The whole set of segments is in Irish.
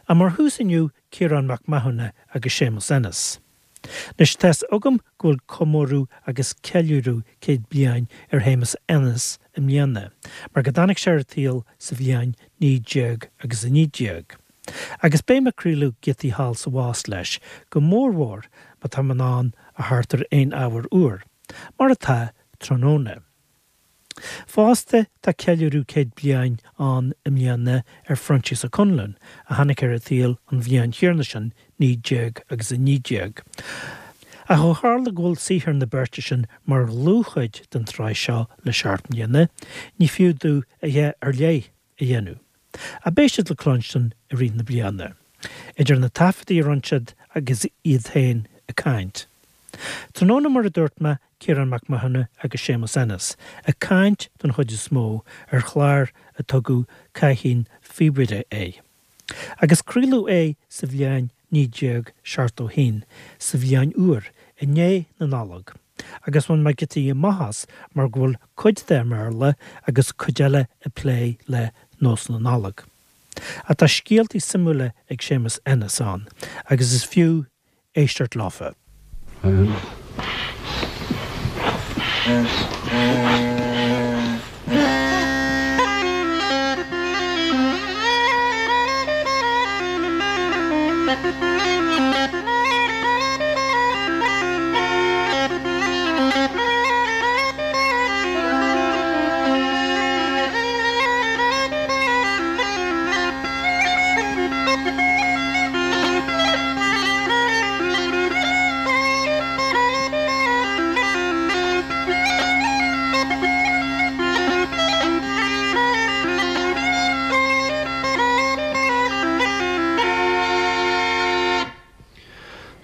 Ach mar thús inniu Ciarán Mac Mathúna agus Séamus Ennis. Anois tá's agam go bhfuil comóradh agus ceiliúradh 100 bliain ar Shéamus Ennis i mbliana, mar go dtáinig sé ar an tsaol sa bhliain 19 agus 19. Agus beidh mé ag craoladh giotaí thall 's abhus leis, go mórmhór má tá mé in ann a theacht ar aon ábhar úr, mar atá tráthnóna. Fosta, tá ceiliúradh 100 bliain ann i mbliana ar Phroinsias Ó Conluain, a tháinig ar an tsaol an bhliain chéanna sin, 19 agus 19. Ach ó tharla go bhfuil saothar na beirte sin mar dhlúthchuid den tsraith seo le seacht mbliana, ní fiú domh a dhath ar leith a dhéanamh. Ach beidh siad le cluinstin i rith na bliana, idir na taifeadtaí a rinne siad agus iad féin ag caint. Tráthnóna, mar a dúirt mé, Ciarán Mac Mathúna agus Séamus Ennis ag caint don chuid is mó ar chlár a tugadh Cáithín Phíobaire air. Agus craoladh é sa bhliain 1971, sa bhliain úr, i ndiaidh na Nollag. Agus bhain mé giotaí amach as mar go bhfuil cuid de i mBéarla agus cuid eile ag plé le nósanna Nollag. Ach tá scéaltaí suimiúla ag Séamus Ennis ann agus is fiú éisteacht leofa.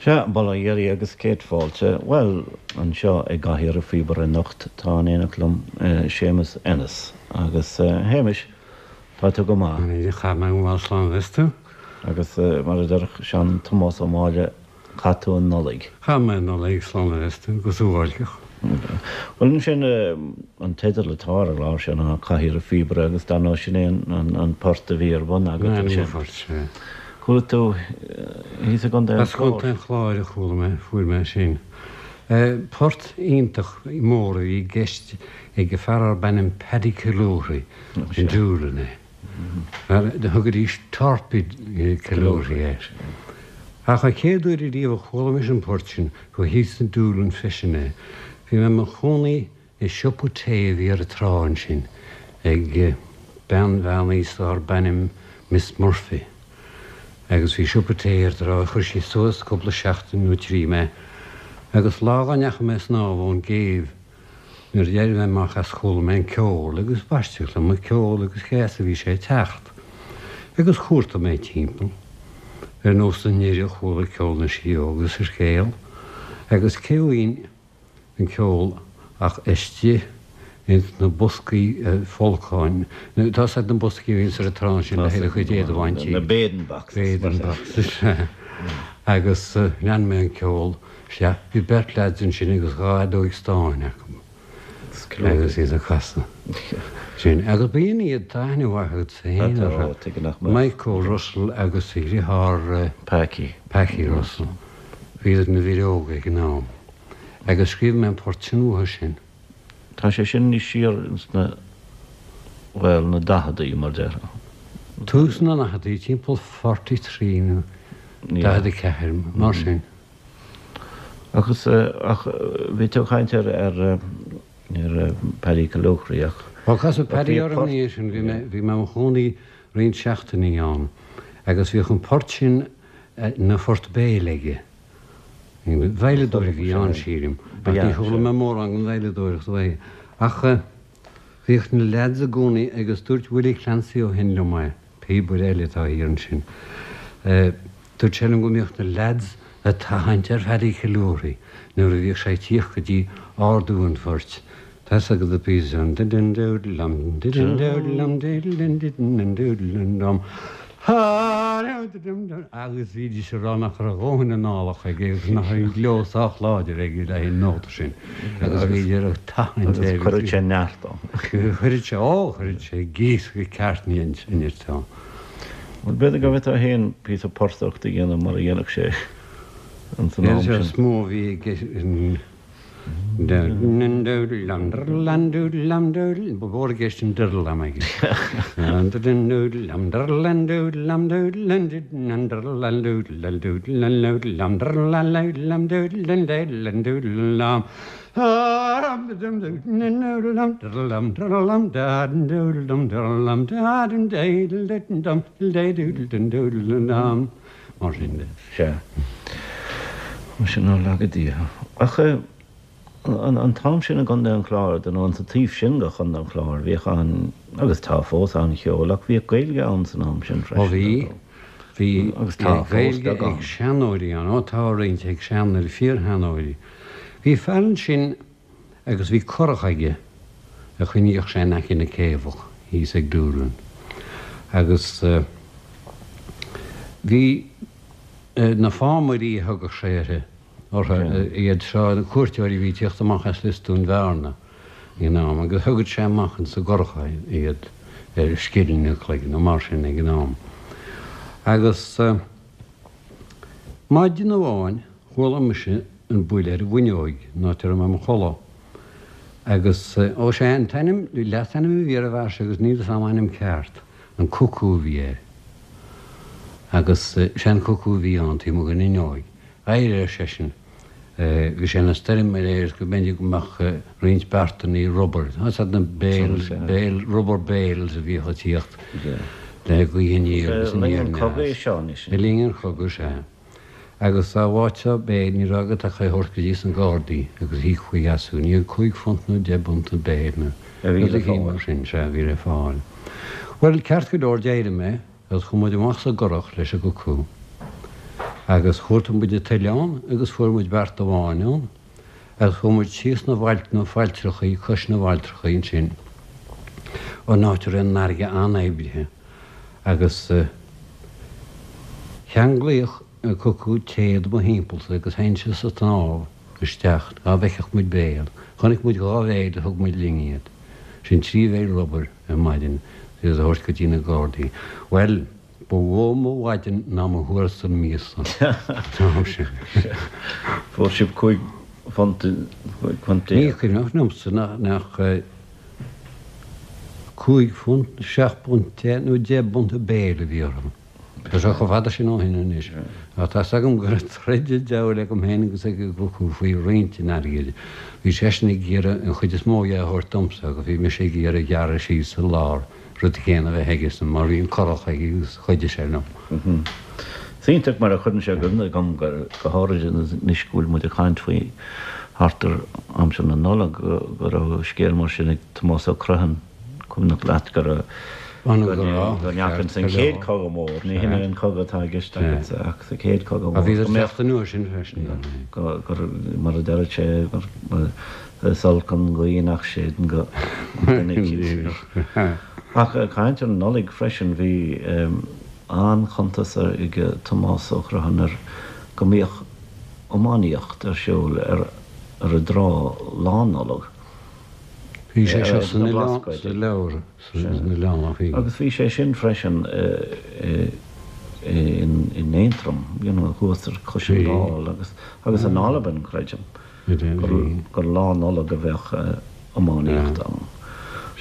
Sea, bail ó Dhia oraibh agus céad fáilte. Bhuel, anseo i gcathaoir an phíobaire anocht tá in éineacht liom Séamus Ennis. Agus a Shéamais, tá tú go maith. Chaith mé go maith slán is tú. Agus mar a déarfadh sean Tomás Ó Máille, chaith tú an Nollaig. Chaith mé an Nollaig slán is tú, go suáilceach. Bhuel ansin, an teideal atá ar an gclár seo ná Cathaoir an Phíobaire agus dar ndóigh sin é an port a bhí ar bun agat ansin. An port, sea. Chuala tú thíos i gContae an As Contae an Chláir a chuala mé, fuair mé sin. Port iontach mór a bhí i gceist ag fear arb ainm Paddy Killourhy in Doolin é. Thugaidís Torpy Killourhy air. Ach an chéad uair ariamh a chuala mise an port sin, ba thíos in Doolin freisin é. Bhí mé i mo chónaí i siopa tae a bhí ar an trá ansin ag bean mheánaosta arb ainm Miss Murphy. Agus bhí siopa tae ar an trá, chuir sí suas cúpla seachtain nó trí mé. Agus lá dá ndeachaigh mé ag snámh ón gcéibh, Nuair a d'éirigh mé amach as chuala mé an ceol agus b'aisteach liom an ceol agus cé as a bhí sé ag teacht. Agus chuartaigh mé timpeall. Ar nós na ndoirí a chuala ceol na sidheoga sa scéal. Agus cé bhfaighinn an ceol ach istigh ins na boscaí folcáin. Tá's agat na boscaí a bhíonns ar an trá ansin le haghaidh do chuid éadaigh a bhaint. Na bathing boxes. Bathing boxes. Agus lean mé an ceol. Sea, bhí beirt leaids ansin agus dha fheadóig stáin acu agus iad ag casadh. Sin. Agus b'in iad, tá aithne mhaith agat féin orthu. Mike Russell agus a dhriotháir Packy. Packy Russell. Bhíodar ina bhfir óga ag an am. Agus scríobh mé an port sin uathu sin. Tá sé sin níos siar ins na, bhuel, na daicheadaí, mar déarfá. Tús na ndaicheadaí, timpeall 43 nó 44, mar sin. Agus, ach bhí tú ag caint ar, ar, ar Paddy Killoughery ach. Bhuel, casadh Paddy orm ina dhiaidh sin, bhí mé, bhí mé i mo chónaí roinnt seachtainí ann agus bhíodh an port sin ina phort béil aige. Veidhleadóir a bhí ann, sílim, ach ní chuala mé mórán den veidhleadóireacht uaidh. Ach bhíodh na leaids i gcónaí agus dúirt Willie Clancy ó shin liom é, píobaire eile atá thiar ansin, Dúirt sé liom go mbíodh na leaids ag tathaint ar Phaddy Killourhy nuair a bhíodh sé ag tíocht go dtí ardú an phoirt, Tá's agat an píosa sin, didin-dúdlam, didin-dúdlam, didin-didin-dúdlam-dum, agus bhídís ag rá nach raibh a dhóthain análach aige agus nach raibh an gleo sách láidir aige le haghaidh an nóta sin agus bhíodar ag tathaint air. Agus chuireadh sé neart ann. Chuireadh sé, ó, chuireadh sé gíoscadh ceart nirt ann. Bhuel, b'fhéidir go bhféadfá féin píosa portaireacht a dhéanamh mar a dhéanfadh sé ins an am sin. Is mó a bhí i gceist. Ba mhór i gceist an diddle-lam aige. Mar sin de. Sea. Mar sin nár laga Dia. Ach an t-am sin i gContae an Chláir, dar ndóigh, sa taobh sin de Chontae an Chláir, bhíodh an, agus tá fós, an-cheol, ach bhíodh Gaeilge ann san am sin freisin. Ó bhí. Bhí Agus tá fós, Gaeilge beagán. ag seanóirí ann. Ó tá roinnt ag seanóirí, fíorsheanóirí. Bhí fear ansin agus bhí curach aige a choinníodh sé in aice na céibheach thíos ag Doolin. Agus bhí na fámairí a thugadh sé uirthi, orthu, iad seo, na cuairteoirí a bhí ag tíocht amach as Lios Dúin Bhearna ag an am, agus thugadh sé amach insa gcurach iad ar scilling an chloig nó mar sin ag an am. Agus maidin amháin chuala mise an buille ar an bhfuinneoig, an áit a raibh mé im chodladh. Agus, ó sé an t-ainm, leasainm a bhí ar an bhfear seo agus níl 'fhios a'm a ainm ceart, an Cucú a bhí air. Agus sé an Cucú a bhí ann taobh amuigh den fhuinneoig. Éirigh, ar seisean. Bhí sé ina stoirm aréir is go mb'fhéidir go mbeadh roinnt beartannaí rubair, tá 'fhios a'd na bales, bale, rubber bales a bhíodh ag tíocht le gaoth aniar agus aniar aneas. Le linn an chogaidh, sea. Agus dá bhfaighteá béil ní raibh agat ach é a thabhairt go dtí sna Gardaí agus íocfaí as thú. Ní £5 nó deich bpunt an béil nó rud eicínt mar sin, sea, a bhí le fáil. Bhuel, ceart go leor, d'éirigh mé agus chuaigh muid amach sa gcurach leis an gcucú agus chuartaigh muid an t-oileán agus fuair muid beart amháin ann agus chuaigh muid síos na bhfailt, na failltreachaí, cois na bhfailltreachaí ansin, an áit a raibh an fharraige an-oibrithe. Agus cheanglaíodh an cucú téad mo thimpeallsa agus theinnse sa tsnámh isteach dhá bhfeicfeadh muid béal. Chonaic muid dhá bhéil thug muid linn iad. Sin trí bhéil rubair ar maidin iad a thabhairt go dtí na Gardaí. Bhuel, ba mhó mo mhaidin ná mo thuarastal míosa an t-am sin. Fuair sibh £15. Ní cuimhneach liomsa nach. £5, £7 nó deich bpunt an béil a bhí orthu. Tá sé chomh fada sin ó shin anois. Ach tá's agam go raibh troid an diabhail agam féin agus ag an gcucú faoi roinnt an airgid. Bhí seisean ag iarraidh an chuid is mó dhe a thabhairt domsa agus bhí mise ag iarraidh gearradh síos sa lár, rud éigin a bheith aigesan mar bhí an curach aige agus chuidigh sé liom. Is iontach mar a chuireann sé i gcuimhne dhom, go háirid anois go bhfuil muid ag caint faoi thart ar aimsir na Nollag, go raibh scéal mar sin ag Tomás Ó Criomhthain, cuimhneach leat go raibh, go ndeachaigh ins an chéad Chogadh Mór, ní hin é an cogadh atá i gceist agatsa ach sa chéad Chogadh Mór, go mbeadh, anuas sin freisin, go, mar a deireadh sé, gur is olc an ghaoth nach séideann go duine eicínt. Ach ag caint ar an Nollaig freisin, bhí an-chuntas ag Tomás Ó Criomhthain ar go mbíodh iománaíocht ar siúl ar an dtrá Lá Nollag. Bhí sé seo san oileán, sa leabhar san oileán ach bhí. Agus bhí sé sin freisin in Aontroim, you know, thuas ar cois an Dáil agus agus in Albain, creidim, gur Lá Nollag a bheadh iománaíocht ann.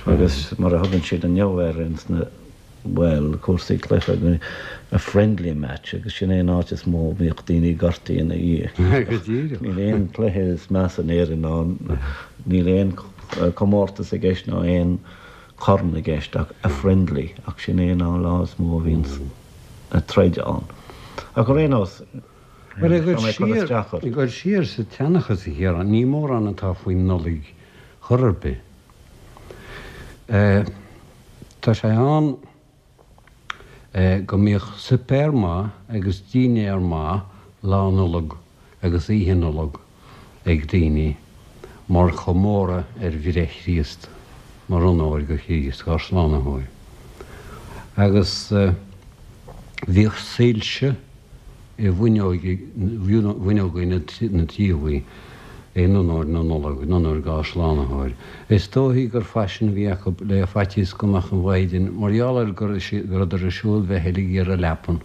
Agus mar a thugann siad inniu air ins na. bhuel, cúrsaí cluiche, a friendly match agus sin é an áit is mó a mbíodh daoine gortaithe ina dhiaidh. Go díreach. Níl aon cluiche is measa in Éirinn ná, níl aon comórtas i gceist ná aon chorn i gceist ach a friendly ach sin é an lá is mó a bhíonns troid ann. Ach ar aon nós, Bhuel, ag dul siar, ag dul siar sa tseanchas, a Chiaráin, ní mórán atá faoin Nollaig chor ar bith. Tá sé ann go mbíodh suipéar maith agus dínnéar maith Lá Nollag agus Oíche Nollag ag daoine mar chomóradh ar bhreith Chríost, mar onóir go Chríost, ár Slánaitheoir. Agus bhíodh soilse i bhfuinneoga na dtithe. In onóir na Nollag, in onóir dhá Shlánaitheoir. Is dóichí gur faisean a bhí acu le faitíos go mbeadh an mhaighdean, mar gheall ar go rabhadar ag siúl bheith ag iarraidh leapan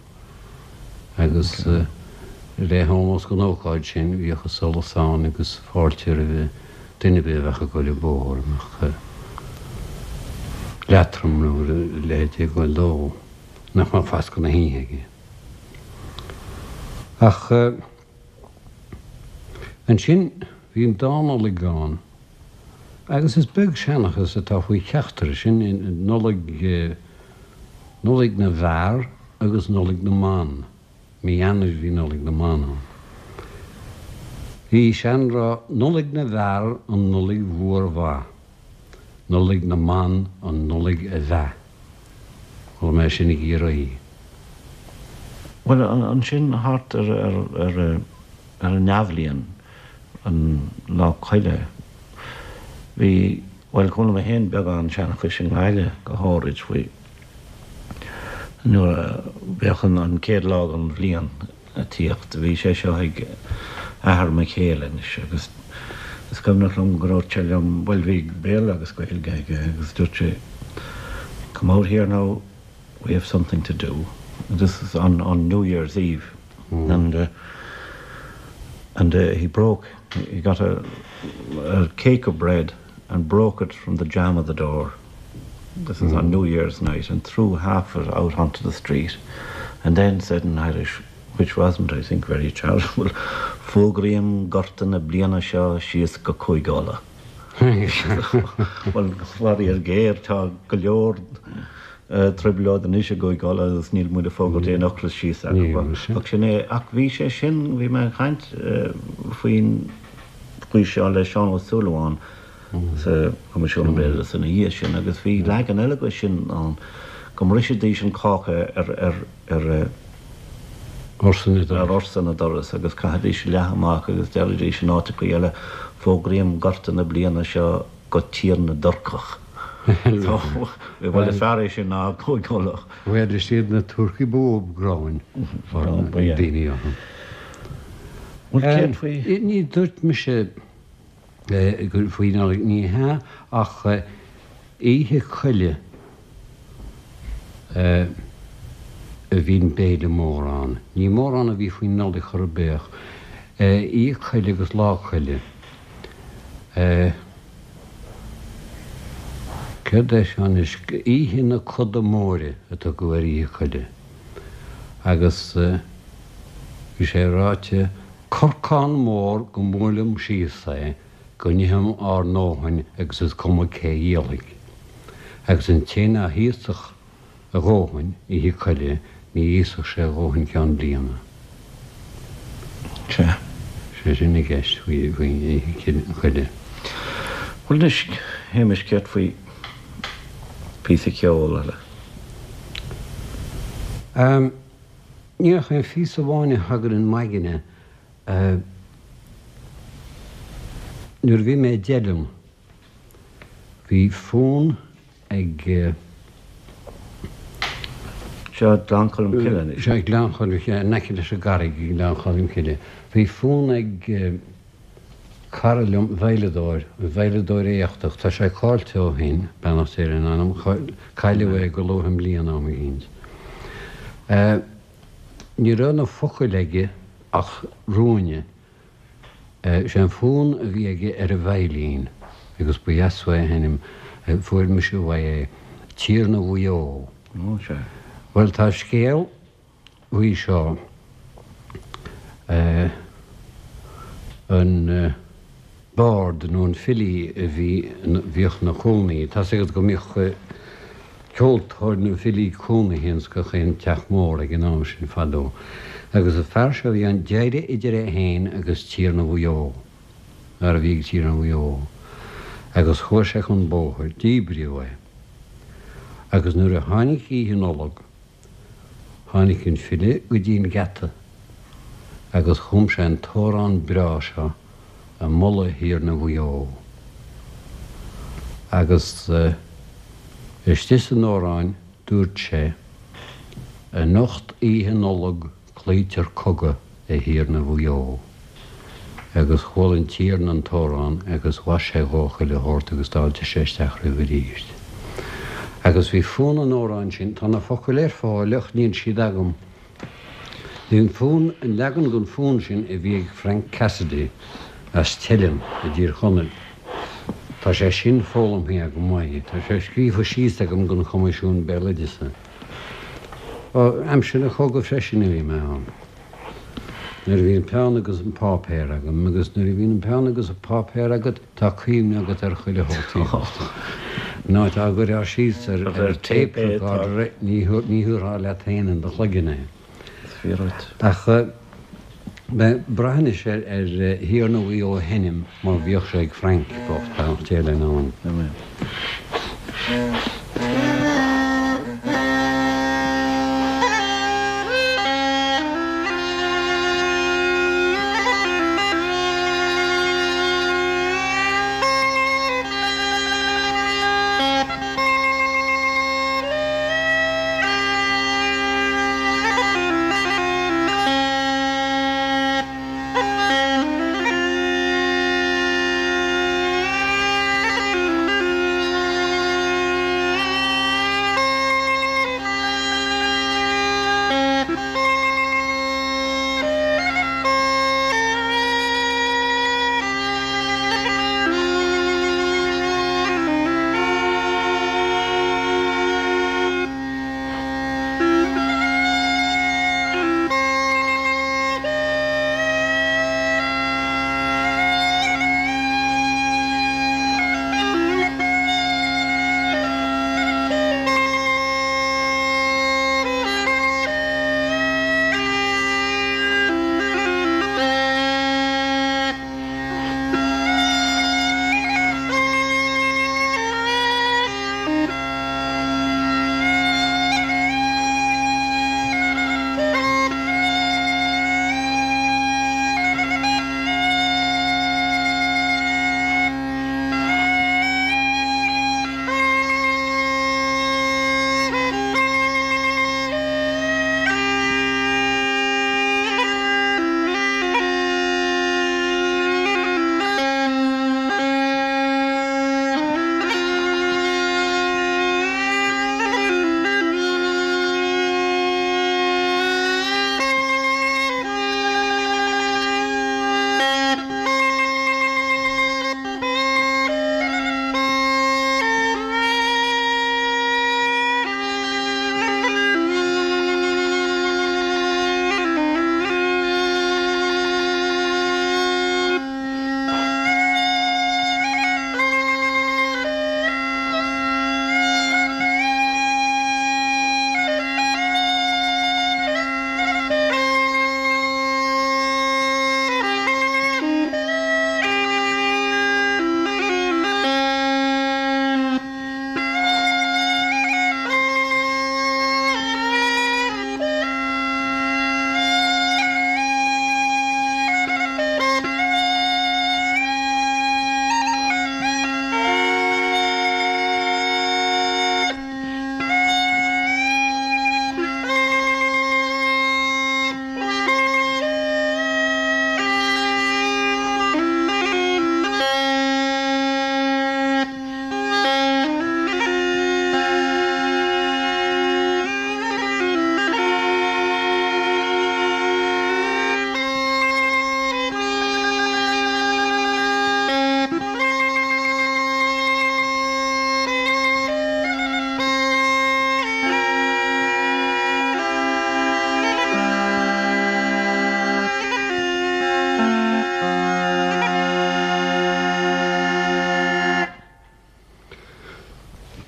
agus le hómós don ócáid sin bhíodh an solas ann agus fáilte roimh duine ar bith a bheadh ag goil an bóthar a mbeadh leatrom nó a leithéid ag goil dó nach mbeadh fascadh na hoíche aige. Ach. Ansin bhí an dá Nollaig ann agus is beag seanchas atá faoi cheachtar, sin Nollaig, Nollaig na bhFear agus Nollaig na mBan. Mí Eanáir bhí Nollaig na mBan ann. Bhí seanrá, Nollaig na bhFear an Nollaig mhór mhaith, Nollaig na mBan an Nollaig a mheath. Chuala mé sin i gCiarraí. Bhuel, ansin thart ar ar an athbhliain, an Lá Coille, bhí, bhuel, chuala mé féin beagán seanchais i nGaillimh go háirid faoi nuair a bheadh an chéad lá den bhliain ag tíocht. Bhí sé seo ag athair mo chéile anois agus is cuimhneach liom go ndúirt sé liom, bhuel bhí Béarla agus Gaeilge aige agus dúirt sé come out here now, we have something to do. This is on, on New Year's Eve and uh, and uh, he broke, he got a, a cake of bread and broke it from the jamb of the door. This is on New Year's night and threw half of it out onto the street and then said in Irish, which wasn't, I think, very charitable, Fógraím gorta na bliana seo síos go Cúige Uladh. Bhuel, faraor géar, tá go leor trioblóid anois i gCúige Uladh agus níl muid ag fógairt aon ocras síos acu. Ach sin é. Ach bhí sé sin, bhí mé ag caint faoin faoi seo le Seán Ó Súilleabháin sa Choimisiún Béaloideasa ina dhiaidh sin agus bhí leagan eile de sin ann, go mbrisfidís an cáca ar ar ar ar na doras agus chaithfidís leath amach agus deiridís in áiteachaí eile, Fógraím gorta na bliana seo go Tír na dTurcach. So, bhuel is fearr é sin ná Cúige Uladh. Bhuel, is iad na Turcaigh ba mhó gráin ag daoine orthu. Bhuel, céard faoi? Ní dúirt mise faoi Nollaig, ní hea, ach Oíche Coille a bhí an béile mór ann. Ní mórán a bhí faoin Nollaig chor ar bith ach Oíche Coille agus Lá Coille. Céard é seo anois? Oíche na Coda Móire a tugadh ar Oíche Coille agus bhí sé ráite, Corcán mór go mbuaileam síos é go n-itheam ár ndóthain agus is cuma cé dhíolfaidh. Agus an té ná híosfadh a dhóthain Oíche Coille ní íosfadh sé a dhóthain ceann bliana. Sea. Sé sin i gceist faoi Oíche Coille. Bhuel anois, Shéamais, céard faoi phíosa ceoil eile? Ní ach aon phíosa amháin a thagann in m'aigne. Nuair a bhí mé i dTeileann, bhí fonn ag. Seo Gleann Cholm Cille anois. Seo Gleann Cholm Cille, in aice leis an gCarraig i nGleann Cholm Cille. Bhí fonn ag cara liom, veidhleadóir, veidhleadóir éachtach, tá sé caillte ó shin, beannacht Dé lena anam, cailleadh é go luath i mbliana am eicínt. Ní raibh na focail aige ach ruainne. Sé an fonn a bhí aige ar an veidhlín, agus ba dheas uaidh a sheinm, fuair mise uaidh é, Tiarna Mhaigh Eo. Bhuel, tá scéal faoi seo, an bard nó an filí a bhí, bhíodh ina chónaí, tá's agat go mbíodh ceoltóir nó filí cónaithe ins gach aon teach mór ag an am sin fadó. Agus an fear seo bhí an deireadh idir é féin agus Tiarna Mhaigh Eo, fear a bhí ag Tiarna Mhaigh Eo, agus chuaigh sé chun bóthair, díbríodh é. Agus nuair a tháinig Oíche Nollag, Tháinig an file go dtí an geata agus chum sé an t-amhrán breá seo ag moladh Thiarna Mhaigh Eo. Agus istigh san amhrán dúirt sé, Anocht Oíche Nollag cloítear cogadh a Thiarna Mhaigh Eo. Agus chuala an Tiarna an t-amhrán agus mhaith sé dhó chuile shórt agus d'fháiltigh sé isteach roimhe arís. Agus bhí fonn an amhráin sin, tá na focail ar fáil ach níl siad agam. Bhí an fonn, an leagan den fhonn sin a bhí ag Frank Cassidy as Teileann i dTír Chonaill, tá sé sin foghlamtha agam uaidh, tá sé scríofa síos agam don Choimisiún Béaloideasa. Ó, aimsir an chogaidh freisin a bhí mé ann. Nuair a bhí an peann agus an páipéar agam, agus nuair a bhíonn an peann agus an páipéar agat, tá cuimhne agat ar chuile shórt. Ná dá gcuirfeá síos ar tape recorder é, ní thabharfá leat féin in do chloigeann é. Ach braith anois ar Thiarna Mhaigh Eo a sheinm mar bhíodh sé ag Frank bocht, beannacht Dé lena anam.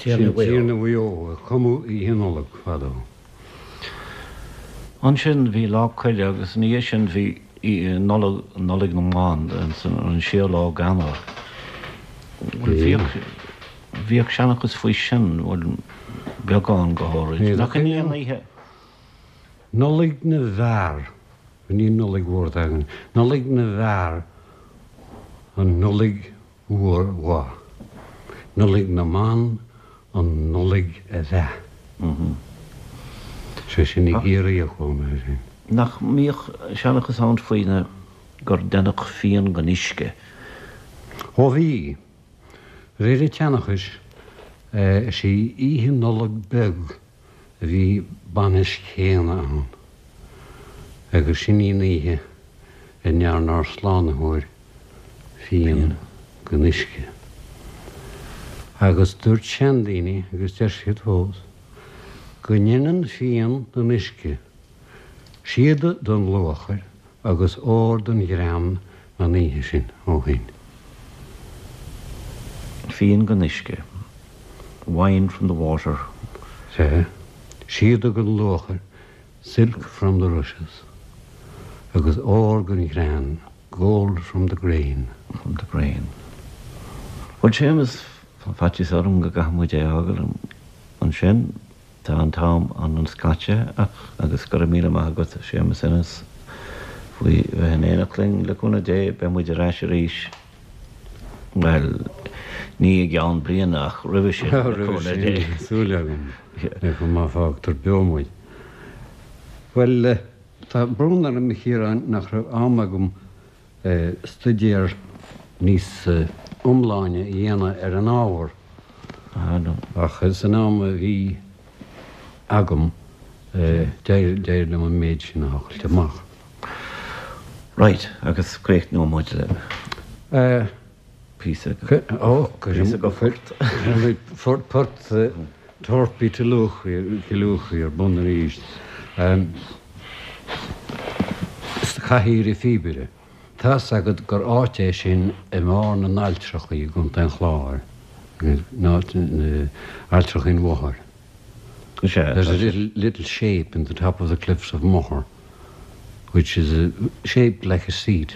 Tiarna Mhaigh Eo, a cumadh Oíche Nollag fadó. Ansin bhí Lá Coille agus ina dhiaidh sin bhí Nollaig, Nollaig na mBan, an séú lá d'Eanáir. Bhuel, bhíodh, bhíodh seanchas faoi sin, bhuel, beagán go háirid. Nach in í an oíche? Nollaig na bhFear, ní an Nollaig Mhór atá againn, Nollaig na bhFear, an Nollaig Mhór Mhaith. Nollaig na mBan, an Nollaig a Mheath. Sé sin i gCiarraí a chuala mé sin. Nach mbíodh seanchas ann faoi na. gur deineadh fíon den uisce. Ó bhí. Réir an tseanchais, is í Oíche Nollag Beag a bhí bainis Chéana ann, agus sin í an oíche a ndearna ár Slánaitheoir fíon den uisce. Agus dúirt seandaoine, agus deir siad fós, go ndeineann fíon den uisce síoda don luachair agus ór don ghreann an oíche sin ó shin. Fíon den uisce, wine from the water. Sea, síoda don luachair, silk from the rushes, agus ór don ghreann, gold from the grain. From the grain. Bhuel, Séamus, tá faitíos orm go gcaithfidh muid é a fhágáil ansin. Tá an t-am an-scaite ach agus go raibh míle maith agat a Séamus Ennis faoi bheith in éineacht linn. Le cúnamh Dé beidh muid ar ais arís, bhuel, ní i gceann bliana ach roimhe sin, le Roimhe cúnamh sin, Dé. súil agam, má fágtar beo muid. Bhuel, tá brón orm a Chiaráin nach raibh am agam staidéar níos iomláine a dhéanamh ar an ábhar, ach san am a bhí agam d'éirigh liom an méid sin a thochailt amach. Right, agus críochnóidh muid le píosa píosa de phort. Port Torpy Killoughey ar bun arís. Cathaoir an Phíobaire. Tá's agat gur áit é sin i mbarr na nAilltreachaí i gContae an Chláir, Ailltreachaí an Mhothair. There's a little, little shape in the top of the cliffs of Moher which is shaped like a seat.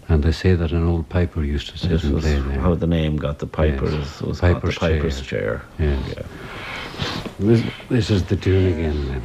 And they say that an old piper used to sit This and was play there. how the name got the pipers yes. was piper's the piper's chair. chair. Yes. Yeah. This, this is the tune again then.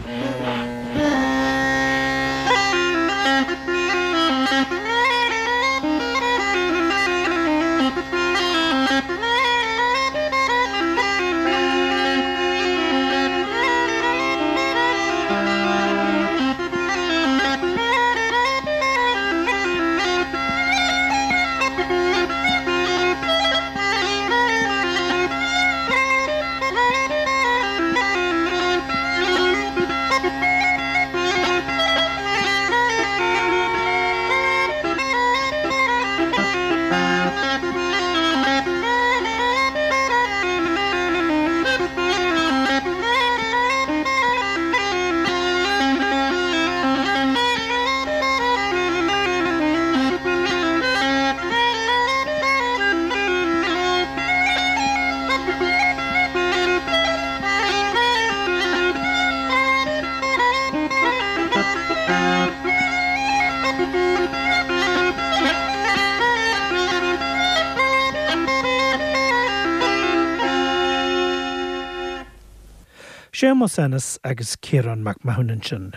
Séamus Ennis agus Ciarán Mac Mathúna ansin.